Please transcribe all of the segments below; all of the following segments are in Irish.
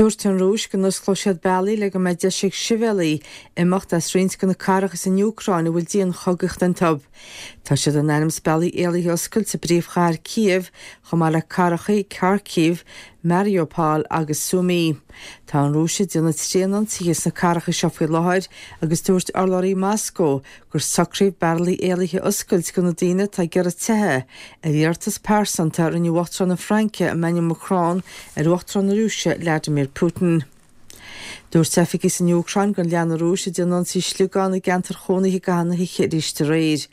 Dúirt an Rúis go n-osclóidh siad bealaí le go mbeidh deis ag sibhialaigh imeacht as roinnt de na cathracha san Úcráin a bhfuil dianchogaíocht iontu. Tá siad in ainm is bealaí éalaithe a oscailt i bpríomhchathair Kyiv chomh maith le cathracha Kharkiv, Mariupol agus Sumy. Tá an Rúis ag déanamh tréanionsaithe sna cathracha seo faoi láthair agus dúirt urlabhraí Moscó gur socraíodh bealaí éalaithe a oscailt do na daoine atá ag iarraidh teitheadh, ar iarratas pearsanta a rinne Uachtarán na Fraince, Emmanuel Macron, ar Uachtarán na Rúise, Vladimir Putin. Dúirt oifigigh san Úcráin gur lean an Rúis ag déanamh ionsaí sliogán i gceantair chónaithe i gcaitheamh na hoíche arís aréir.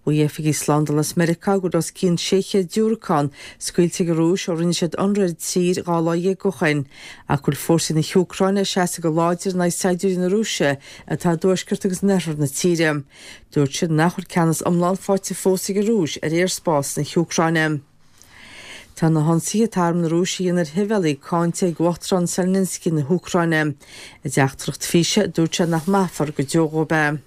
Mhaígh oifigigh slándála as Meiriceá go raibh os cionn 600 diúracán scaoilte ag an Rúis ó rinne siad ionradh ar an tír 12 lá ó shin, ach go bhfuil fórsaí na hÚcráine ag seasamh go láidir in aghaidh saighdiúirí na Rúise atá i dtuaisceart agus in oirthear na tíre. Dúirt siad nach bhfuil ceannas iomlán faighte fós ag an Rúis ar aerspás na hÚcráine. Tá na hionsaithe atá arm na Rúise a dhéanamh ar shibhialaigh cáinte ag Uachtarán Zelensky na hÚcráine. I dteachtaireacht físe, dúirt sé nach maithfear go deo dhóibh é.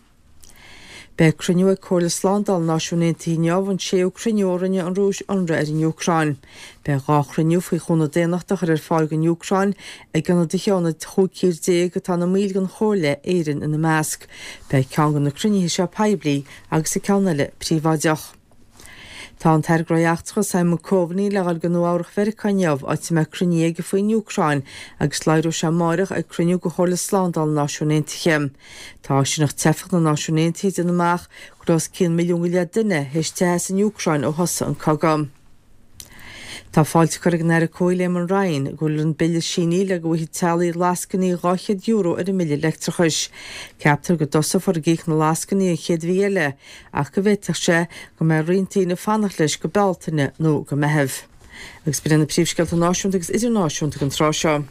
Beidh cruinniú ag Comhairle Slándála na Náisiún Aontaithe inniu, an séú cruinniú ó rinne an Rúis ionradh ar an Úcráin. Beidh 2 chruinniú faoi chúnamh daonnachta a chur ar fáil don Úcráin ag ionadaithe ó na 15 tír atá ina mbaill den Chomhairle, Éirinn ina measc. Beidh ceann de na cruinnithe seo poiblí agus an ceann eile príobháideach. Tá an tAire Gnóthaí Eachtracha Simon Coveney le dhul go Nua Eabhrach Mheiriceá inniu, áit a mbeidh cruinniú aige faoin Úcráin agus labhróidh sé amáireach ag cruinniú de Chomhairle Slándála na Náisiún Aontaithe. Tá áisíneacht teifeach na Náisiún Aontaithe ag déanamh amach go raibh os cionn milliún go leith duine théis teitheadh as an Úcráin ó thosaigh an cogadh. Tá fáilte curtha ag an Aire Comhshaoil Eamon Ryan go bhfuil an bille sínithe le go bhfaighidh teaghlaigh lascainí €200 ar a mbille leictreachais. Ceaptar go dtosófar ag íoc na lascainí an chéad mhí eile ach go bhféadfadh sé go mbeidh roinnt daoine ag fanacht leis go Bealtaine nó go Meitheamh. Agus b'in iad na príomhscéalta náisiúnta agus idirnáisiúnta don tráth seo.